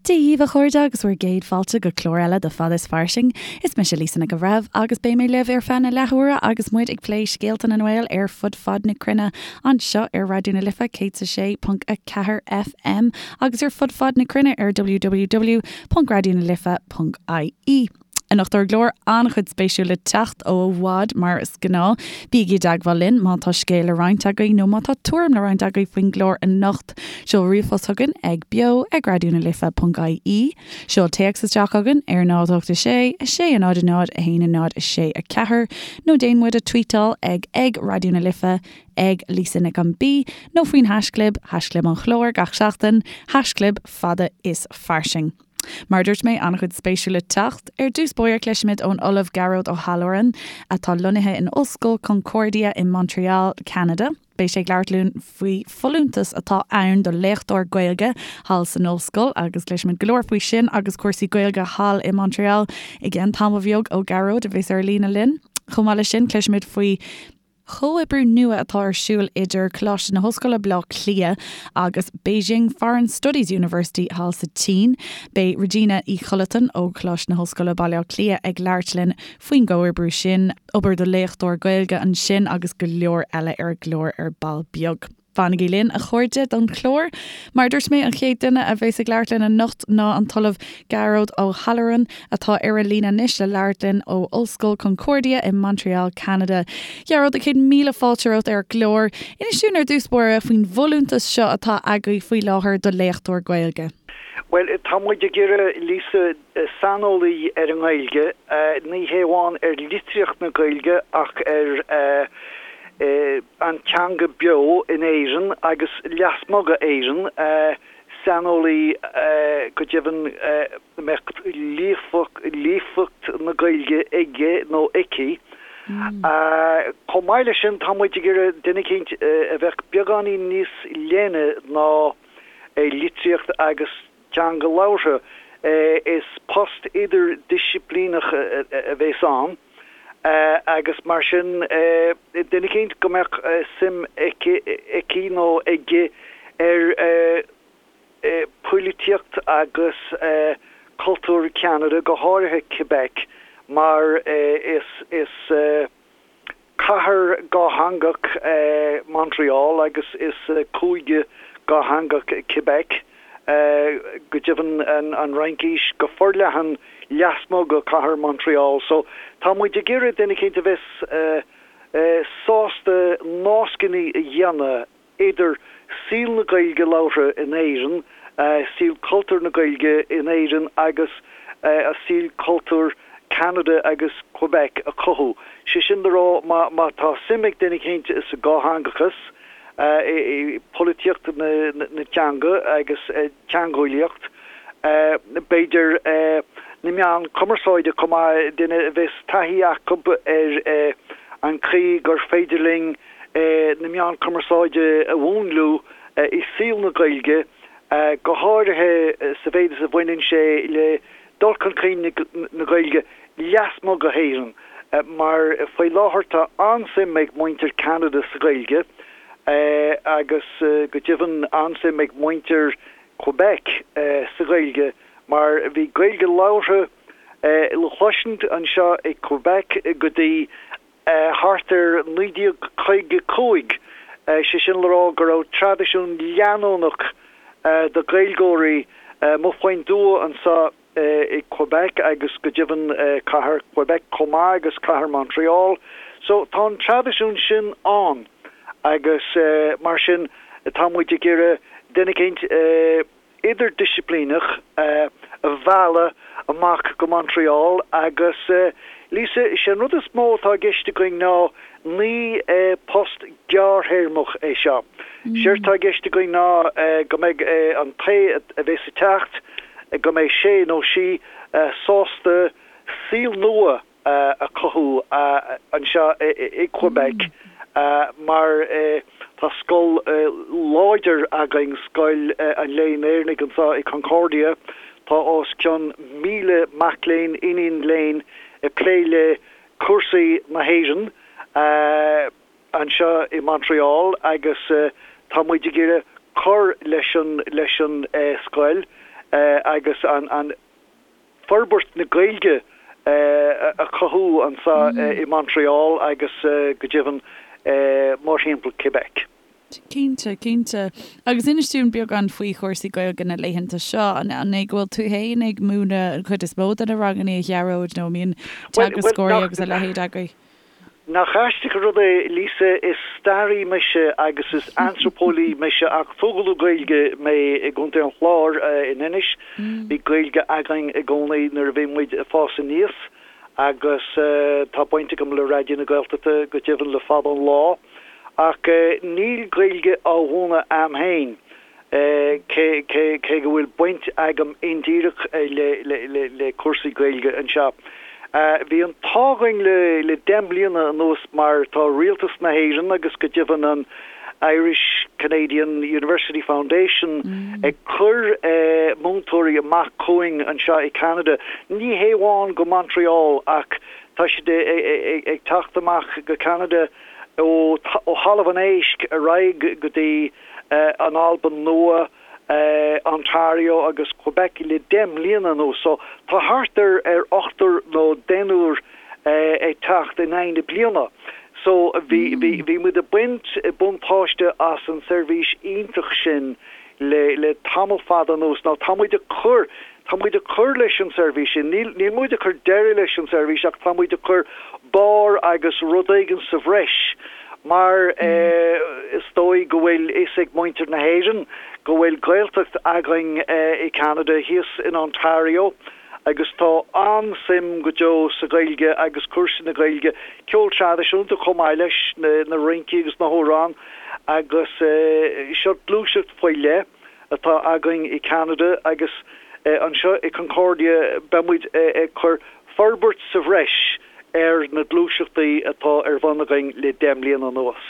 Dia dhaoibh a chairde agus bhur gcéad fáilte go clár eile de Fada is Fairsing. Is mise Lisa Nic an Bhreithimh agus beidh mé libh ar feadh na leathuaire agus muid ag plé scéalta na nGael ar fud fad na cruinne anseo ar Raidió na Life 106.4 FM agus ar fud fad na cruinne ar www.raidionalife.ie. Anocht ar an gclár, an-chuid spéisiúil le teacht ó i bhfad mar is gnáth. Bígí i dteagmháil linn má tá scéal le roinnt agaibh nó má tá tuairim le roinnt agaibh faoin gclár anocht. Seol ríomhphost chugainn ag beo ag raidionalife.ie. Seol téacs isteach chugainn ar 0 8 6 6 0 0 1 0 6 4 nó déan muid a tweetáil ag ag Raidió na Life, ag Lisa Nic an B nó faoin haischlib, haischlib an chláir gach seachtain, haischlib fada is fairsing. Mar a dúirt mé, an-chuid spéisiúil le teacht. Ar dtús báire cloisfimid ón Ollamh Gearóid Ó hAlluráin, atá lonnaithe in Ollscoil Concordia i Montreal, Ceanada. Beidh sé ag labhairt linn faoi folúntas atá ann do léachtóir Gaeilge thall san ollscoil agus cloisfimid go leor faoi sin agus cúrsaí Gaeilge thall i Montreal i gceann tamall bheag ó Ghearóid a bheas ar líne linn. Chomh maith leis sin cloisfimid faoi chomhoibriú nua atá ar siúl idir Coláiste na hOllscoile Baile Átha Cliath agus Beijing Foreign Studies University thall sa tSín. Beidh Regina Uí Chollatáin ó Choláiste na hOllscoile Baile Átha Cliath ag labhairt linn faoin gcomhoibriú sin, obair do léachtóir Gaeilge ansin agus go leor eile ar an gclár ar ball beag. Fanaigí linn, a chairde, don chlár. Mar a dúirt mé, an chéad duine a bheas ag labhairt linn anocht ná an tOllamh Gearóid Ó hAlluráin, atá ar an líne anois le labhairt linn ó Ollscoil Concordia i Montreal, Ceanada. Gearóid, 100,000 fáilte romhat ar an gclár. Inis dúinn ar dtús báire faoin bhfolúntas seo atá agaibh faoi láthair do léachtóir Gaeilge. Bhuel, tá muid ag iarraidh, Lisa, saineolaí ar an nGaeilge, ní hé amháin ar litríocht na Gaeilge ach ar an teanga beo in Éirinn agus lasmuigh d'Éirinn, saineolaí go deimhin a mbeadh líofacht na Gaeilge aige nó aici. Chomh maith leis sin, tá muid ag iarraidh duine eicínt a bheadh beagáinín níos leithne ná litríocht agus teanga labhartha. Is post idirdhisciplíneach a bheas ann agus mar sin duine eicínt go mbeadh suim aici, aici nó aige ar phoilitíocht agus cultúr Cheanada, go háirithe Quebec, mar is is. Cathair dhátheangach é Montreal agus is cúige dhátheangach Quebec. Go deimhin an Fhraincis go forleathan lasmuigh de chathair Montreal. So tá muid ag iarraidh duine eicínt a bheas sásta nascanna a dhéanamh idir saol na Gaeilge labhartha in Éirinn, saol cultúr na Gaeilge in Éirinn agus saol cultúr Ceanada agus Quebec a chothú. Sé sin le rá, má tá suim ag duine eicínt sa dhátheangachas, i bpolaitíocht na teanga agus teangeolaíocht, b'fhéidir na meáin cumarsáide chomh maith, duine a bheas taithí acu ar an chaoi gur féidir linn na meáin cumarsáide a mhúnlú i saol na Gaeilge, go háirithe sa mhéid is a bhaineann sé le dul chun cinn na Gaeilge lasmuigh de hÉirinn, mar faoi láthair tá an-suim ag muintir Cheanada sa Ghaeilge agus go deimhin an-suim ag muintir Quebec sa Ghaeilge mar bhí Gaeilge labhartha le cloisint anseo i Quebec go dtí thart ar 1955, sé sin le rá go raibh traidisiún leanúnach de Ghaeilgeoirí amuigh faoin dtuath anseo i Quebec agus go deimhin cathair Quebec chomh maith agus cathair Montreal. So tá an traidisiún sin ann agus mar sin tá muid ag iarraidh duine eicínt, idirdhisciplíneach a mhealladh amach go Montreal agus, Lisa, is é an rud is mó atá i gceist againn ná ní post gearrthéarmach é seo. Séard atá i gceist againn ná go mbeidh an té a bheas ag teacht, go mbeidh sé nó sí sásta saol nua a chothú anseo i Quebec mar tá scoil láidir againn, Scoil an Léinn Éireannaigh anseo i Concordia. Tá os cionn 1,000 mac léinn, iníon léinn ag plé le cúrsaí na hÉireann. anseo i Montreal agus tá muid ag iarraidh cur leis an leis an scoil. agus an forbairt na Gaeilge a chothú anseo i Montreal agus go deimhin mórthimpeall Quebec. Cinnte, cinnte. Agus inis dúinn beagán faoi chúrsaí Gaeilge na laethanta seo. An é go bhfuil tú féin ag múineadh an chuid is mó de na ranganna, a Ghearóid, nó an mbíonn teagascóirí agus a leithéid agaibh? Nach aisteach an rud é, Lisa, is staraí mise agus is antraipeolaí mise ach tógadh le Gaeilge mé i gContae an Chláir in Inis. Bhí Gaeilge againn i gcónaí nuair a bhí muid ag fás aníos agus tá baint agam le Raidió na Gaeltachta go deimhin le fada an lá. Ach níl Gaeilge á mhúineadh a'm féin. Cé cé go bhfuil baint agam indíreach le cúrsaí Gaeilge anseo, bhí an t-ádh againn le 10 mbliana anuas mar tá Rialtas na hÉireann agus go deimhin an Irish Canadian University Foundation ag cur múinteoirí amach chugainn anseo i Ceanada, ní hé amháin go Montreal ach tá siad ag teacht amach go Ceanada ó Thalamh an Éisc ar aghaidh go dtí an Albain Nua, Ontario agus Quebec le 10 mbliana anuas. So tá thart ar ar ochtar nó deichniúr ag teacht in aghaidh na bliana. So bhí bhí bhí muid ag baint buntáiste as an seirbhís iontach sin le le tamall fada anuas. Now tá muid ag cur Tá muid ag cur leis an seirbhís sin. Níl, níl muid ag cur deireadh leis an seirbhís ach tá muid ag cur barr agus rud éigin sa bhreis mar is dóigh go bhfuil fhios ag muintir na hÉireann go bhfuil Gaeltacht againn i Canada, thíos in Ontario agus tá an-suim go deo sa Ghaeilge agus cúrsaí na Gaeilge, ceol traidisiúnta chomh maith leis na rincí agus na hamhráin agus seo gluaiseacht faoi leith. atá againn i Ceanada agus anseo i Concordia beidh muid ag cur forbairt sa bhreis ar na gluaiseachtaí atá ar bun againn le 10 mbliana anuas.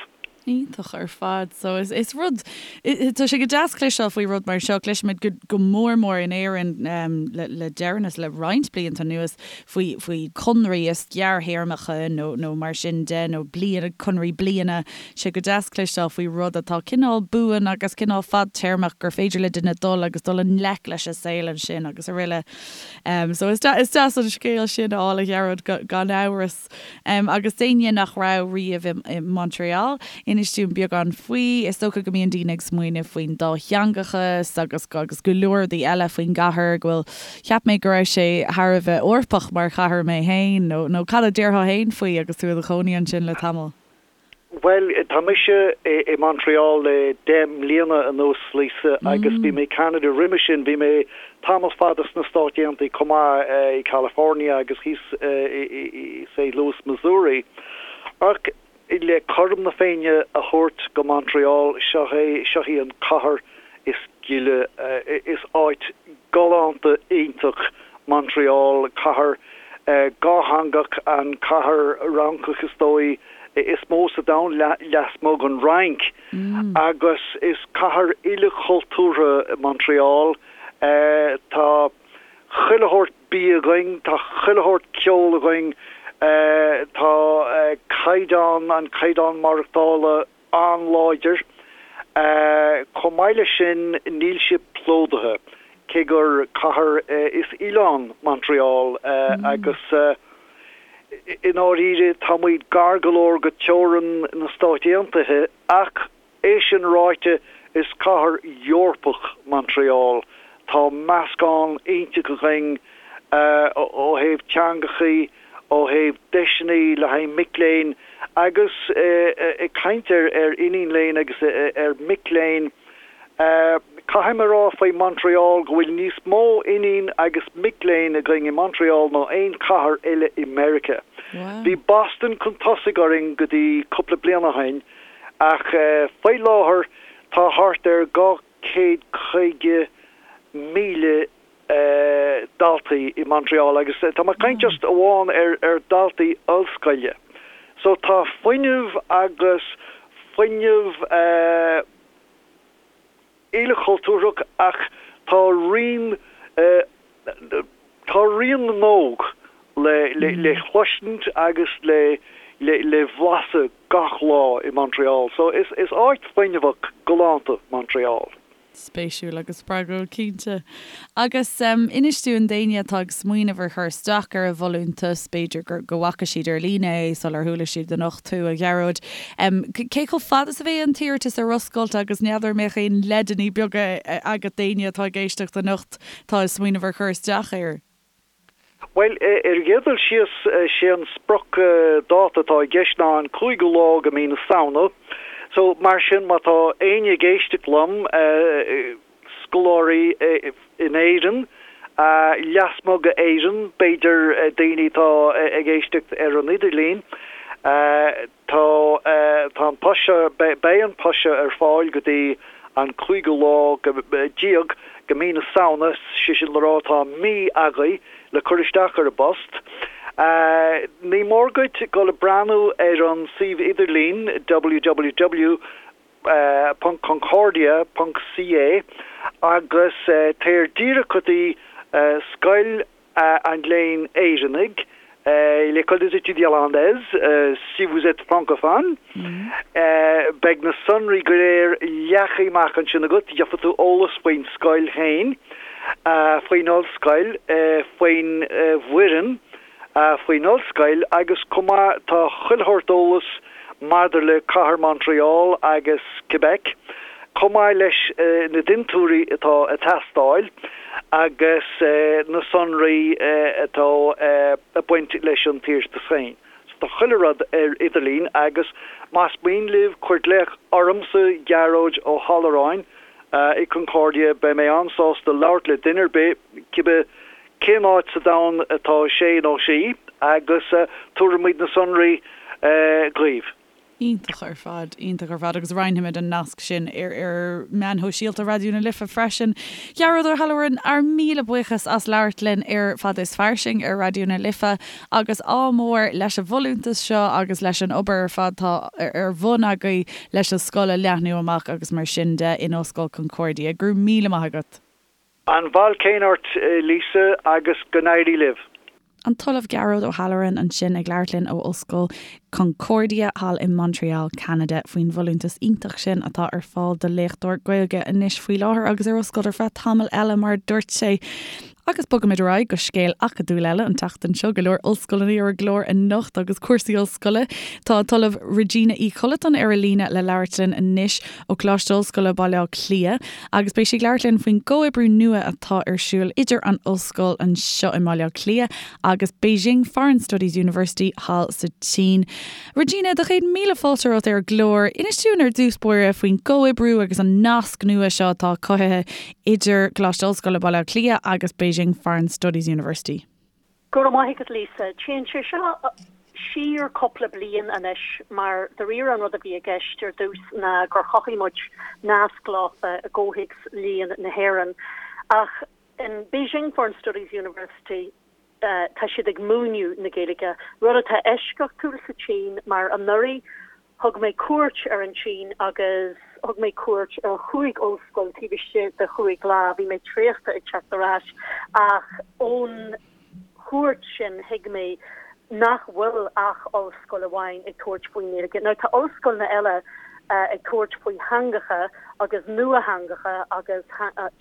Iontach ar fad. So is is rud, tá sé go deas cloisteáil faoi rud mar seo. Cloisimid go go mór mór in Éirinn le le deireanas, le roinnt blianta anuas faoi faoi conraí is gearrthéarmacha nó nó mar sin de nó bliana, conraí bliana. Sé go deas cloisteáil faoi rud atá cineál buan agus cineál fadtéarmach gur féidir le duine dul agus dul i ngleic leis an saol ansin agus araile. So is is deas an scéal sin a fháil a Ghearóid gan amhras. Agus d'éinne nach raibh riamh i Montreal, inis dúinn beagán faoi. Is dócha go mbíonn daoine ag smaoineamh faoin dátheangachas agus agus go leor rudaí eile faoin gcathair go bhfuil Cheap mé go raibh sé thar a bheith Eorpach mar chathair mé féin, nó nó cad a déarfá féin faoi agus tú i do chónaí ansin le tamall? Bhuel, tá mise i Montreal le 10 mbliana anuas, Lisa, agus bhí mé i Canada roimhe sin. Bhí mé tamall fada sna Stáit Aontaithe chomh maith, i California agus thíos i St. Louis, Missouri. Ach le cothrom na Féinne a thabhairt go Montreal, seo é, seo í an cathair is gile, is áit galánta iontach Montreal, cathair dhátheangach, an cathair Fhrancach is dóigh is mó sa domhan lasmuigh den Fhrainc, agus is cathair ilchultúrtha Montreal. Tá chuile shórt bia againn, tá chuile shórt ceol againn, tá caighdeán, an caighdeán maireachtála an-láidir. Chomh maith leis sin, níl sé plódaithe, cé gur cathair is oileán Montreal agus i ndáiríre tá muid gar go leor go teorainn na Stáit Aontaithe ach é sin ráite is cathair Eorpach Montreal. Tá meascán iontach againn ó thaobh teangachaí, ó thaobh deiseanna le haghaidh mic léinn agus ag caint ar iníon léinn agus ar mic léinn, caithfidh mé a rá faoi Montreal go bhfuil níos mó iníon agus mic léinn againn i Montreal ná aon chathair eile i Meiriceá. Bhí Boston chun tosaigh orainn go dtí cúpla bliain ó shin ach faoi láthair tá thart ar 250,000 daltaí i Montreal agus tá mé ag caint just amháin ar ar daltaí ollscoile. So tá fuinneamh agus fuinneamh ilchultúrach ach tá rian tá rian na n-óg le le le chloisint agus le le le bhlaiseadh gach lá i Montreal. So is is áit fuinneamhach galánta Montreal. Spéisiúil agus spreagúil, cinnte. Agus inis dúinn, d'éinne atá ag smaoineamh ar chur isteach ar an bhfolúntas, b'fhéidir gur go bhfaca siad ar líne é sular chuala siad anocht thú, a Ghearóid, cé chomh fada is a bheidh an t-iarratas ar oscailt agus n'fheadar an mbeadh aon leideanna beaga agat d'éinne atá ag éisteacht anocht atá ag smaoineamh ar chur isteach air? Bhuel, ar an gcéad dul síos, sé an sprioc dáta atá i gceist ná an cúigiú lá de mí na Samhna. So, mar sin, má tá éinne ag éisteacht liom, scoláirí in Éirinn, lasmuigh d'Éirinn, b'fhéidir daoine atá ag éisteacht ar an idirlíon, Tá, tá an post seo, beidh an post seo ar fáil go dtí an cúigiú lá déag de mí na Samhna, sé sin le rá tá mí agaibh le cur isteach ar an bpost. Ní mór duit dul ag breathnú ar an suíomh idirlín www ponc concordia ponc ca agus téir díreach go dtí Scoil an Léinn Éireannaigh, L'École des Études Irlandaises, si vous êtes francophone. Beidh na sonraí go léir leagtha amach ansin agat, gheobhaidh tú eolas faoin scoil féin, faoin ollscoil, faoin bhfoireann, faoin ollscoil agus chomh maith tá chuile shórt eolas maidir le cathair Montreal agus Quebec, chomh maith leis na dintiúirí atá ag teastáil agus na sonraí atá ag baint leis an t-iarratas féin. So tá chuile rud ar idirlíon agus más mian libh cuir glaoch ormsa, Gearóid Ó hAlluráin, i Concordia, beidh mé an-sásta labhairt le duine ar bith, cibé cén áit sa domhan atá sé nó sí agus tabharfaimid na sonraí dhaoibh. Iontach ar fad, iontach ar fad agus roinnfimid an nasc sin ar ar meáin shóisialta Raidió na Life freisin. Gearóid Ó hAllmhuráin, ár míle buíochas as labhairt linn ar Fada is Fairsing ar Raidió na Life agus ádh mór leis an bhfolúntas seo agus leis an obair ar fad atá ar bun agaibh leis an scoil a leathnú amach agus mar sin de in Ollscoil Concordia. Go raibh míle maith agat. An bail céanna ort, Lisa, agus go n-éirí libh. An tOllamh Gearóid Ó hAllmhuráin ansin ag labhairt linn ó Ollscoil Concordia thall i Montreal, Ceanada, faoin bhfolúntas iontach sin atá ar fáil do léachtóir Gaeilge anois faoi láthair agus ar oscailt ar feadh tamall eile, mar a dúirt sé. Agus bogaimid ar aghaidh go scéal acadúil eile an tseachtain seo, go leor ollscoileanna ar an gclár anocht agus cúrsaí ollscoile. Tá an tOllamh Regina Uí Chollatáin ar an líne le labhairt linn anois ó Choláiste Ollscoile Baile Átha Cliath agus beidh sí ag labhairt linn faoin gcomhoibriú nua atá ar siúl idir an ollscoil anseo i mBaile Átha Cliath agus Beijing Foreign Studies University thall sa tSín. Regina, do chéad míle fáilte romhat ar an gclár. Inis dúinn ar dtús báire faoin gcomhoibriú agus an nasc nua seo atá cothaithe idir Coláiste Ollscoile Baile Átha Cliath agus Beijing Foreign Studies University. Go raibh maith agat Lisa. Téann sé seo siar cúpla bliain anois mar dáiríre an rud a bhí i gceist ar dtús ná gur chothaigh muid nasc leofa i gcomhthéacs Léann na hÉireann. Ach in Beijing Foreign Studies University tá siad ag múineadh na Gaeilge, rud atá eisceachtúil sa tSín mar anuraidh Thug mé cuairt ar an tSín agus thug mé cuairt ar chúig ollscoil taobh istigh de chúig lá. Bhí mé traochta ag teacht ar ais ach ón chuairt sin thuig mé nach bhfuil ach ollscoil amháin ag tabhairt faoin nGaeilge. Now tá ollscoileanna eile ag tabhairt faoi theangacha agus nuatheangacha agus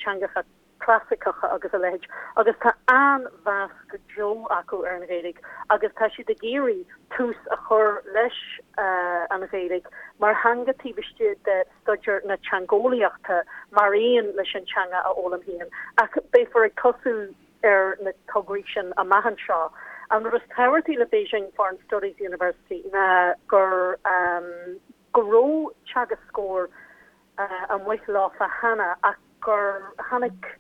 teangacha clasaiceacha agus a leithéid agus tá an-mheas go deo acu ar an Ghaeilge agus tá siad ag iarraidh tús a chur leis an Ghaeilge mar theanga taobh istigh de staidéar na teangeolaíochta mar aon leis an teanga a fhoghlaim féin. Ach beifear ag tosú ar na tograí sin amach anseo. An rud is tábhachtaí le Beijing Foreign Studies University ná gur go raibh teagascóir amuigh leofa cheana ach gur tháinig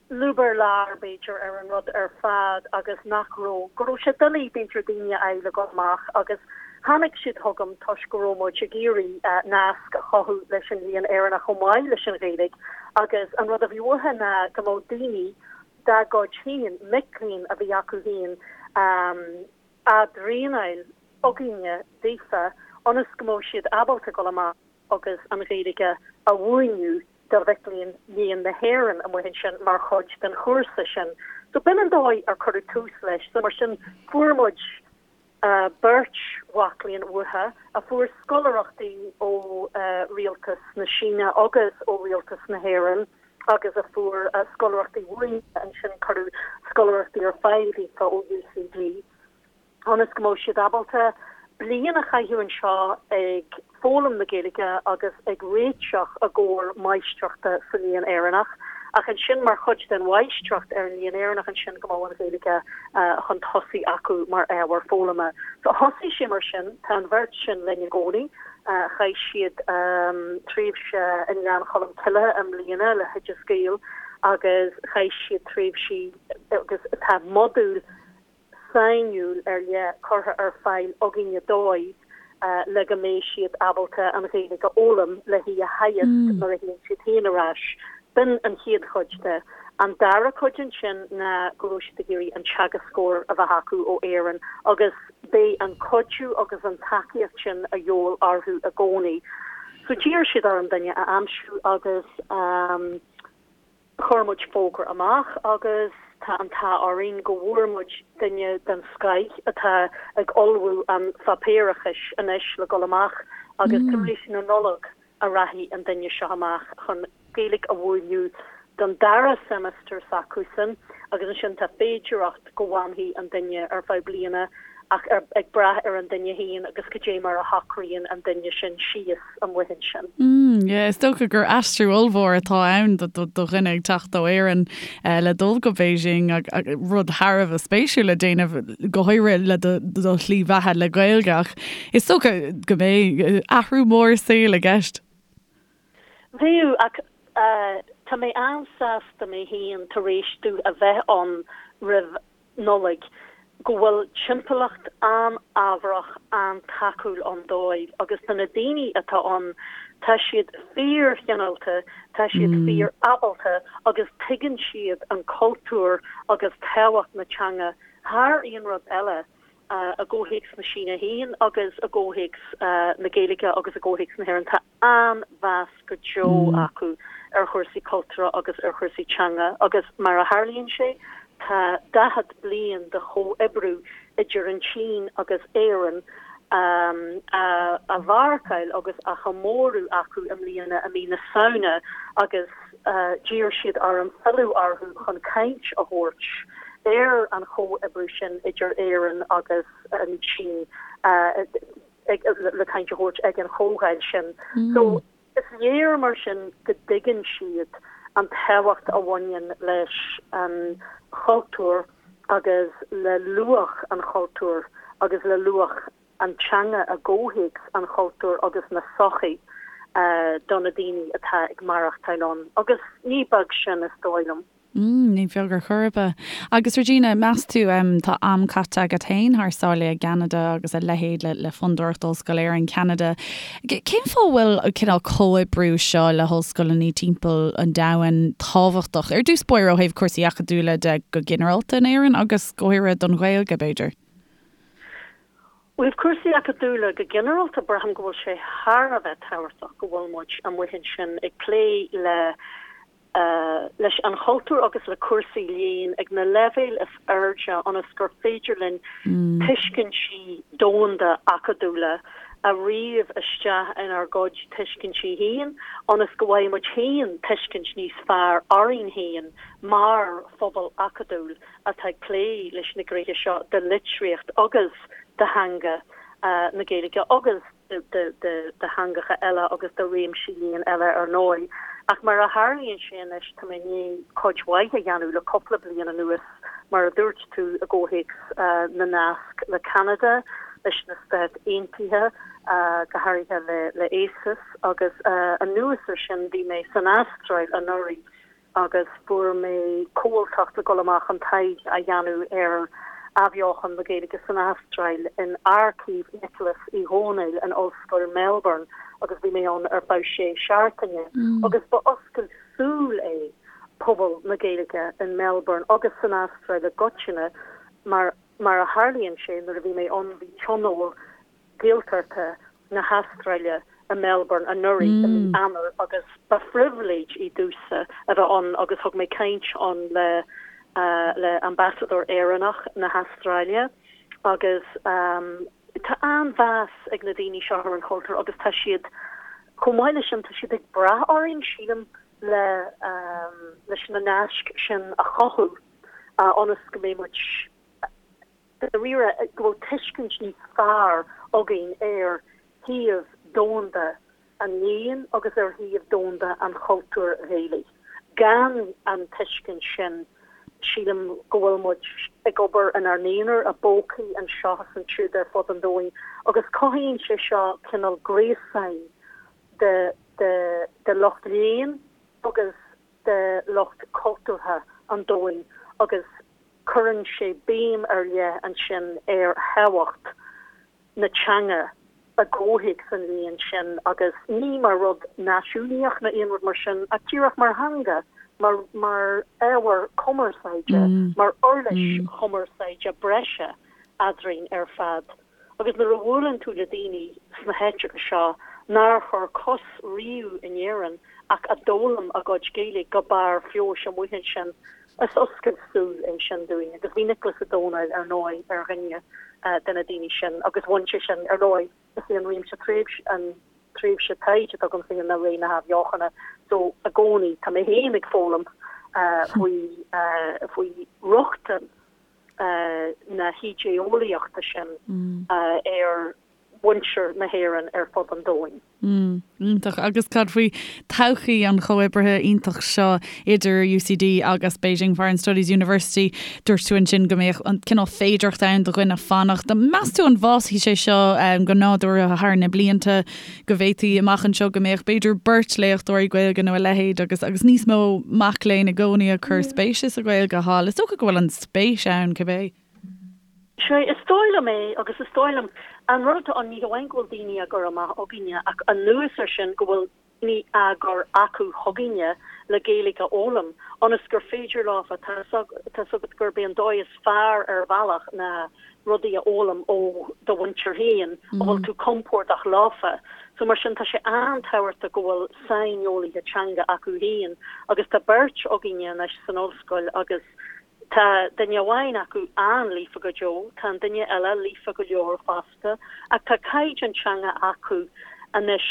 lúb ar lár, b'fhéidir, ar an rud ar fad agus nach raibh, go raibh sé doiligh, b'fhéidir, daoine a fháil le dhul amach agus tháinig siad chugam toisc go raibh muid ag iarraidh nasc a chothú leis an Léann Éireannach chomh maith leis an Ghaeilge agus an rud a bhí uathu ná go mbeadh daoine dá gcuid féin, mic léinn a bhí acu féin, á dtraenáil againne daofa ionas go mbeadh siad ábalta dul amach. agus an Ghaeilge a mhúineadh do mhic léinn Léann na hÉireann amuigh ansin mar chuid den chúrsa sin. So b'in an dóigh ar cuireadh tús leis. So mar sin fuair muid Beirt mhac léinn uathu a fuair scoláireachtaí ó Rialtas na Síne agus ó Rialtas na hÉireann agus a fuair scoláireachtaí uainn ansin, cuireadh scoláireachtaí ar fáil daofa ó UCD. ionas go mbeadh siad ábalta bliain a chaitheamh anseo ag foghlaim na Gaeilge agus ag réiteach i gcomhair máistreachta sa Léann Éireannach. Ach ansin mar chuid den mháistreacht ar an Léann Éireannach ansin go mbeadh an Ghaeilge chun tosaigh acu mar ábhar foghlama. So thosaigh sé mar sin, tá an bheirt sin linn i gcónaí. Chaith siad tréimhse i nGleann Cholm Cille i mbliana le hOideas Gael agus chaith siad tréimhsí agus tá modúl sainiúil ar leith curtha ar fáil againne dóibh le go mbeidh siad ábalta an Ghaeilge a fhoghlaim le hí a theagasc nuair a théann siad féin ar ais. B'in an chéad chuid de. An dara cuid ansin ná go raibh siad ag iarraidh an teagascóir a bheith acu ó Éirinn agus beidh an cuidiú agus an tacaíocht sin a dhíobháil orthu i gcónaí. So d'iarr siad orm duine a aimsiú agus. Chuir muid fógra amach agus tá an t-ádh orainn go bhfuair muid duine den scoith atá ag ullmhú an pháipéarachais anois le dul amach agus tar éis na Nollag a rachaidh an duine seo amach chun Gaeilge a mhúineadh don dara seimeastar s'acusan agus ansin tá féidireacht go bhfanfaidh an duine ar feadh bliana ach ag brath ar an duine féin agus cad é mar a shocraíonn an duine sin síos amuigh ansin. Mm, yeah, is dócha gur aistriú ollmhór atá ann do dhuine ag teacht ó Éirinn le dul go Beijing rud thar a bheith spéisiúil le déanamh go háirithe le do shlí bheatha le Gaeilge ach is dócha go mbeidh athrú mór saoil i gceist. Bheadh, ach tá mé an-sásta mé féin tar éis domh a bheith ann roimh Nollaig, go bhfuil timpeallacht an-fhábharach, an-tacúil ann dóibh agus do na daoine atá ann, tá siad fíor-chineálta, tá siad fíor-ábalta agus tuigeann siad an cultúr agus tábhacht na teanga thar aon rud eile i gcomhthéacs na Síne féin agus i gcomhthéacs na Gaeilge agus i gcomhthéacs na hÉireann. Tá an-mheas go deo acu ar chúrsaí cultúrtha agus ar chúrsaí teanga agus mar a tharlaíonn sé, tá 40 bliain de chomhoibriú idir an tSín agus Éirinn á mharcáil agus á chomóradh acu i mbliana i mí na Samhna agus d'iarr siad orm filleadh orthu chun caint a thabhairt ar an chomhoibriú sin idir Éirinn agus an tSín. le caint a thabhairt ag an chomhdháil sin. So, is léir mar sin go dtuigeann siad an tábhacht a bhaineann leis an chultúr agus le luach an chultúir agus le luach an teanga i gcomhthéacs an chultúir agus na sochaí do na daoine atá ag maireachtáil ann. Agus ní beag sin, is dóigh liom. Mm, ní beag ar chor ar bith. Agus Regina, meas tú, tá am caite agat féin thar sáile i gCeanada agus a leithéid le, le Fondúireacht Ollscoil Éireann Ceanada. Cén fáth a bhfuil an cineál comhoibriú seo le hollscoileanna timpeall an domhain tábhachtach, ar dtús báire ó thaobh cúrsaí acadúla de go ginearálta in Éirinn agus go háirithe don Ghaeilge, b'fhéidir? Ó thaobh cúrsaí acadúla go ginearálta, braithim go bhfuil sé thar a bheith tábhachtach go bhfuil muid amuigh ansin ag plé le leis an chultúr agus le cúrsaí léinn ag na leibhéil is airde ionas gur féidir linn tuiscintí domhanda acadúla a ríomh isteach inár gcuid tuiscintí féin ionas go bhfaighidh muid féin tuiscint níos fearr orainn féin mar phobal acadúil atá ag plé leis na gnéithe seo de litríocht agus de theanga na Gaeilge agus de theangacha eile agus de réimsí léinn eile ar ndóigh. Ach mar a tharlaíonn sé anois, tá mé i ndiaidh cuid mhaith a dhéanamh le cúpla bliain anuas, mar a dúirt tú, i gcomhthéacs na nasc le Ceanada, leis na Stáit Aontaithe, go háirithe le ACES, agus anuas ar sin bhí mé san Astráil anuraidh agus fuair mé comhaltacht le dul amach chun taighde a dhéanamh ar athbheochan na Gaeilge san Astráil in Aircív Niocláis Uí Dhónaill in Ollscoil Melbourne agus bhí mé ann ar feadh sé seachtaine agus ba oscailt súl é pobal na Gaeilge in Melbourne agus san Astráil i gcoitinne mar mar a tharlaíonn sé nuair a bhí mé ann bhí tionól Gaeltachta na hAstráile i Melbourne anuraidh i mí Eanáir agus ba phribhléid í domhsa a bheith ann agus thug mé caint ann le le Ambasadóir Éireannach na hAstráile. Agus tá an-mheas ag na daoine seo ar an chultúr agus tá siad, chomh maith leis sin, tá siad ag brath orainn, sílim, le leis na naisc sin a chothú ionas go mbeidh muid, dáiríre, go bhfuil tuiscint níos fearr againn ar shuíomh domhanda an léinn agus ar shuíomh domhanda an chultúir Ghaelaigh. Gan an tuiscint sin, sílim go bhfuil muid ag obair inár n-aonar, i bpócaí anseo is ansiúd ar fud an domhain, agus cothaíonn sé seo cineál gréasáin de de lucht léinn agus de lucht cultúrtha an domhain agus cuireann sé béim ar leith ansin ar thábhacht na teanga i gcomhthéacs an léinn sin agus ní mar rud náisiúnaíoch nó aon rud mar sin ach díreach mar theanga, mar mar ábhar cumarsáide, mar uirlis chumarsáide breise eadrainn ar fad. Agus nuair a bhuaileann tú le daoine sna háiteacha seo nár chuir cos riamh in Éirinn ach a d'fhoghlaim a gcuid Gaeilge go barr feabhais amuigh ansin, Is oscailt súl é sin dúinn agus bhí Nioclás Ó Domhnaill ar ndóigh ar dhuine de na daoine sin agus bhain sé sin, ar ndóigh, is é an réimse tréimhse, an tréimhse taighde atá agam féin ná ré na hAthbheochana so i gcónaí tá mé féin ag foghlaim faoi, faoi rochtain na hídé-eolaíochta sin ar mhuintir na hÉireann ar fud an domhain. Mm, iontach. Agus cad faoi todhchaí an chomhoibrithe iontach seo idir UCD agus Beijing Foreign Studies University? Dúirt tú ansin go mbeadh an cineál féidearthacht ann do dhuine fanacht. Meas tú an bhfásfaidh sé seo go nádúrtha thar na blianta, go bhféadfaí amach anseo go mbeadh b'fhéidir beirt léachtóirí Gaeilge nó a leithéid agus agus níos mó mac léinn i gcónaí ag cur spéise sa Ghaeilge thall? Is dócha go bhfuil an spéis ann cibé. Sea, is dóigh liom é, agus is dóigh liom, an rud atá ann, ní hamháin go bhfuil daoine á gcur amach againne, ach anuas air sin, go bhfuil daoine á gcur acu chugainne le Gaeilge a fhoghlaim, ionas gur féidir leofa, tá 's agat gurb é an dóigh is fearr ar bhealach ná rudaí a fhoghlaim ó do mhuintir féin, a bhfuil tú compordach leofa. So mar sin, tá sé an-tábhachtach go bhfuil saineolaithe teanga acu féin, agus tá beirt againne anois san ollscoil agus, Tá duine amháin acu an-líofa go deo, tá an duine eile líofa go leor fosta, ach tá caighdeán teanga acu anois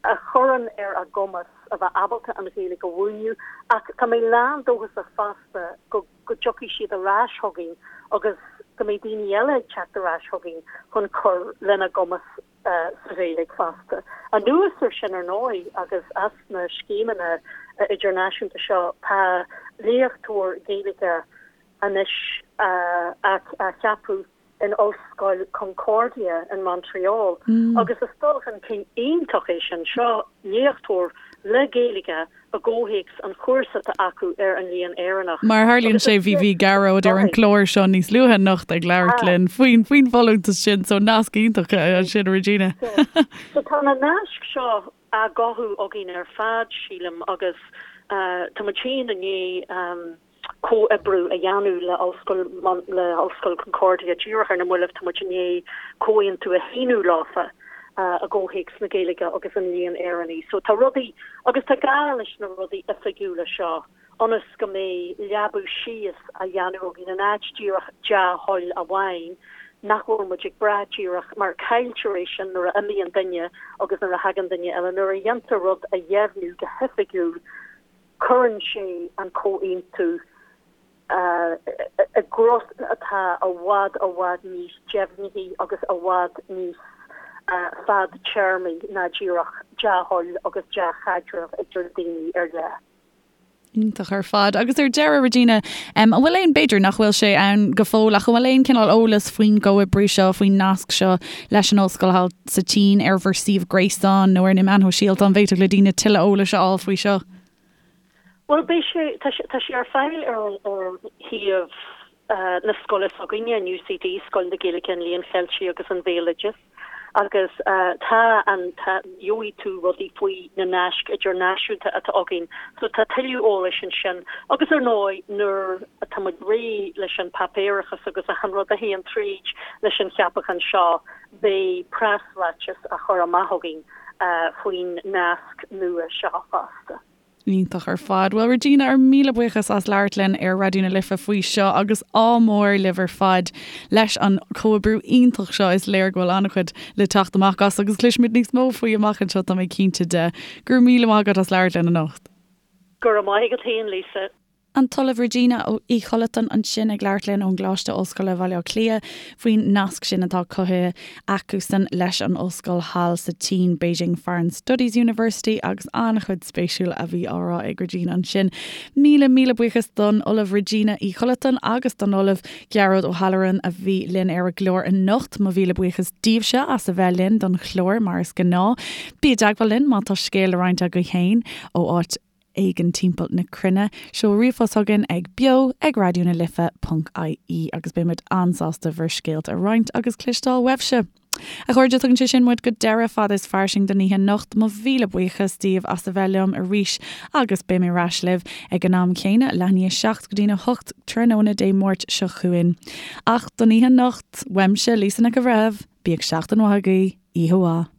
a chuireann ar a gcumas a bheith ábalta an Ghaeilge a mhúineadh. Ach tá mé lán-dóchasach fosta go go dtiocfaidh siad ar ais chugainn agus go mbeidh daoine eile ag teacht ar ais chugainn chun cur lena gcumas sa Ghaeilge fosta. Anuas ar sin, ar ndóigh, agus as na scéimeanna idirnáisiúnta seo, tá léachtóir Gaeilge anois á cheapadh in Ollscoil Concordia in Montreal agus is dul chun cinn iontach é sin. Seo léachtóir le Gaeilge i gcomhthéacs an chúrsa atá acu ar an Léann Éireannach. Mar a tharlaíonn sé, bhí bhí Gearóid ar an gclár seo níos luaithe anocht ag labhairt linn faoin faoin bhfolúntas sin, so nasc iontach ansin, Regina. So tá na naisc seo á gcothú againn ar fad, sílim, agus tá muid féin i ndiaidh comhoibriú a dhéanamh le Ollscoil le Ollscoil Concordia díreach ar na mallaibh, tá muid i ndiaidh comhaontú a shíniú leofa i gcomhthéacs na Gaeilge agus an Léinn Éireannaigh. So tá rudaí, agus tá gá leis na rudaí oifigiúla seo ionas go mbeidh leabú síos á dhéanamh againn in áit díreach dea-thoil amháin nach bhfuil muid ag brath díreach mar cailltear é sin nuair a imíonn duine agus nuair a thagann duine eile. Nuair a dhéantar rud a dheimhniú go hoifigiúil, Cuireann sé an comhaontú i gcruth atá i bhfad i bhfad níos deimhnithí agus i bhfad níos fadtéarmaí ná díreach dea-thoil agus dea-chaidreamh idir daoine ar leith. Iontach ar fad. Agus ar deireadh, Regina, an bhfuil aon, b'fhéidir nach bhfuil sé ann go fóill, ach an bhfuil aon cineál eolas faoin gcomhoibriú seo, faoin nasc seo leis an ollscoil thall sa tSín ar bhur suíomh gréasáin nó ar na meáin shóisialta, an bhféadfadh le daoine tuilleadh eolais a fháil faoi seo? Bhuel, beidh sé, tá sé, tá sé ar fáil ar ar shuíomh na scoile s'againne, an UCD, Scoil na Gaeilge, an Léinn Cheiltigh agus an Bhéaloidis, agus tá an, tá, gheobhaidh tú rudaí faoi na naisc idirnáisiúnta atá againn, so tá tuilleadh eolais ansin. Agus ar ndóigh, nuair atá muid réidh leis an páipéarachas agus achan rud a théann tríd leis an cheapachán seo, Beidh preasráiteas á chur amach againn faoin nasc nua seo fosta. Iontach ar fad. Bhuel Regina, ár míle buíochas as labhairt linn ar Raidió na Life faoi seo agus ádh mór libh ar fad leis an chomhoibriú iontach seo. Is léir go bhfuil an-chuid le teacht amach as agus cloisfimid níos mó faoi amach anseo, tá mé cinnte de. Go raibh míle maith agat as labhairt linn anocht. Go raibh maith agat féin, Lisa. An tOllamh Regina Uí Chollatáin ansin ag labhairt linn ón gColáiste Ollscoile Bhaile Átha Cliath faoin nasc sin atá cothaithe acusan leis an ollscoil thall sa tSín, Beijing Foreign Studies University, agus an-chuid spéisiúil a bhí á rá ag Regina ansin. Míle, míle buíochas don Ollamh Regina Uí Chollatáin agus don Ollamh Gearóid Ó hAlluráin a bhí linn ar an gclár anocht. Mo mhíle buíochas daoibhse as a bheith linn don chlár mar is gnáth. Bí i dteagmháil linn má tá scéal le roinnt agaibh féin ó áit éigin timpeall na cruinne. Seol ríomhphost chugainn ag beo ag raidió na life ponc ie agus beidh muid an-sásta bhur scéalta a roinnt agus cloisteáil uaibhse. A chairde, tugann sé sin muid go deireadh Fada is Fairsing don oíche anocht. Mo mhíle buíochas daoibh as a bheith liom arís agus beidh mé ar ais libh ag an am céanna, leath i ndiaidh a 7 go dtí'n 8 tráthnóna Dé Máirt seo chugainn. Ach don oíche anocht, uaimse, Lisa Nic an Bhreithimh, bíodh seachtain mhaith agaibh, oíche mhaith.